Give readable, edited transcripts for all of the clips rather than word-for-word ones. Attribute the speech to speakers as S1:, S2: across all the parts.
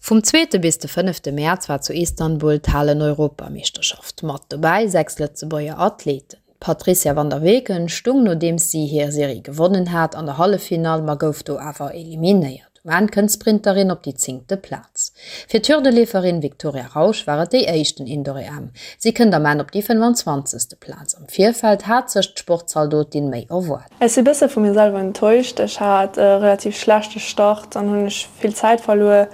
S1: Vum zweete bis de fënnefte Mäerz war zu Istanbul d'Halen-Europameeschterschaft. Mat dobäi 6 Lëtzebuerger Athleten. D'Patrizia van der Weken stung, nodeems si hir Serie gewonnen hat, an der Halleffinall, ma gouf do awer eliminéiert. Um Enn kënnt d'Sprinterin op déi zéngte Plaz. Fir d'Hürdeleeferin Victoria Rausch war et déi éischten Indoor-EM. Si kënnt am Enn op déi 25. Plaz. Am Virfeld hat sech d'Sportzaldotin méi erwaart.
S2: Ech si bësse vu mir selwer enttäuscht. Ech hat e relativ schlechte Start, dann hunn ech vill Zäit verluer.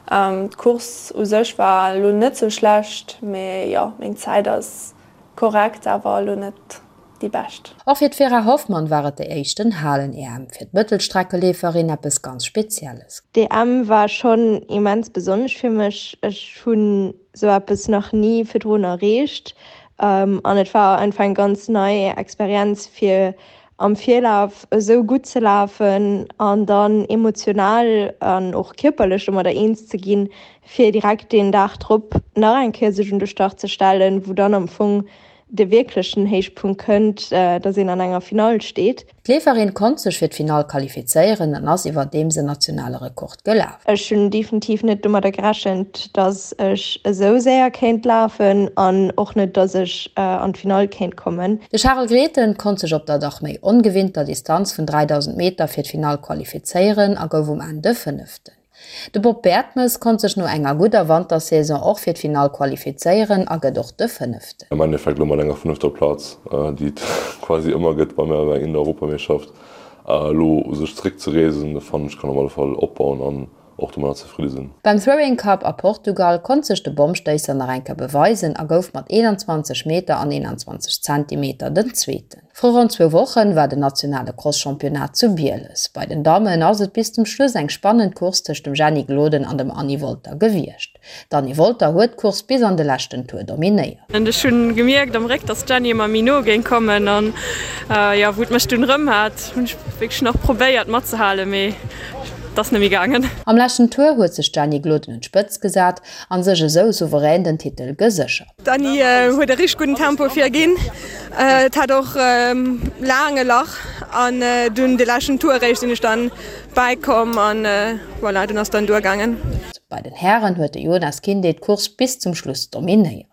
S2: D'Course u sech war elo net sou schlecht, mee jo, meng Zäit ass korrekt, awer elo net déi bescht.
S1: Och fir d'Vera Hoffmann war et déi éischten Halen-EM. Fir d'Mëttelstreckeleeferin eppes ganz Spezielles.
S3: D'EM war schonn immens besonnesch fir mech. Ech hunn sou eppes nach ni virdrun erreecht an et war einfach eng ganz nei Experienz fir am Virlaf esou gutt ze lafen an dann emotional an och kierperlech domadder eens ze ginn, fir direkt deen Dag drop nach eng Kéier sech un de Start ze stellen, wou dann am Fong de wierklechen Héichpunkt kënnt, dass een an enger Finall steet.
S1: D'Leeferin konnt sech fir d'Finall qualifizéieren an ass iwwerdeems en nationale Rekord gelaf.
S3: Ech hunn definitiv net domadder gerechent, dass ech esou séier kéint lafen an och net, dass ech an d'Finall kéint kommen.
S1: De Charel Grethen konnt sech op der dach méi ongewinnter Distanz vun 3.000 Meter fir d'Finall qualifizéieren a gouf um Enn de Fënneften. De Bob Bertemes konnt sech no enger gudder Wantersaison och fir d'Finall qualifizéieren a gëtt och de Fënneften.
S4: Am Endeffekt elo mat enger fënnefter Plaz, déi et quasi ëmmer gëtt bei mär bei der Europameeschterschaft, elo u sech zeréck ze reesen, fannen ech kann op alle Fall opbauen an och domadder zefridde sinn.
S1: Beim Throwing Cup a Portugal konnt sech de Bommstéisser nach eng Kéier beweisen a gouf mat 21 Meter an 21 Zentimeter den Zweeten. Vru ronn zwou Wochen war den nationale Cross-Championnat zu Bieles. Bei den Dammen ass et bis zum Schluss eng spannend Course tëscht dem Jenny Gloden an dem Anny Wolter gewiescht. D'Anny Wolter huet d'Course bis an de leschten Tour dominéiert.
S2: Ech hunn gemierkt am Réck dass d'Jenny ëmmer méi no géing kommen an jo wou et mech dunn rëm hat hunn ech wierklech nach probéiert matzehalen mee et ass net méi gaangen.
S1: Am leschten Tour huet sech d'Jenny Gloden un d'Spëtzt gesat an sech esou souverän den Titel geséchert.
S2: D'Anny huet e richteg gudden Tempo virginn. Et hat och laang e Lach an dunn de leschten Tour eréischt sinn ech dann bäikomm an voilà, dunn ass dann duergaangen.
S1: Bei den Hären huet de Jonas Kinde d'Course bis zum Schluss dominéiert.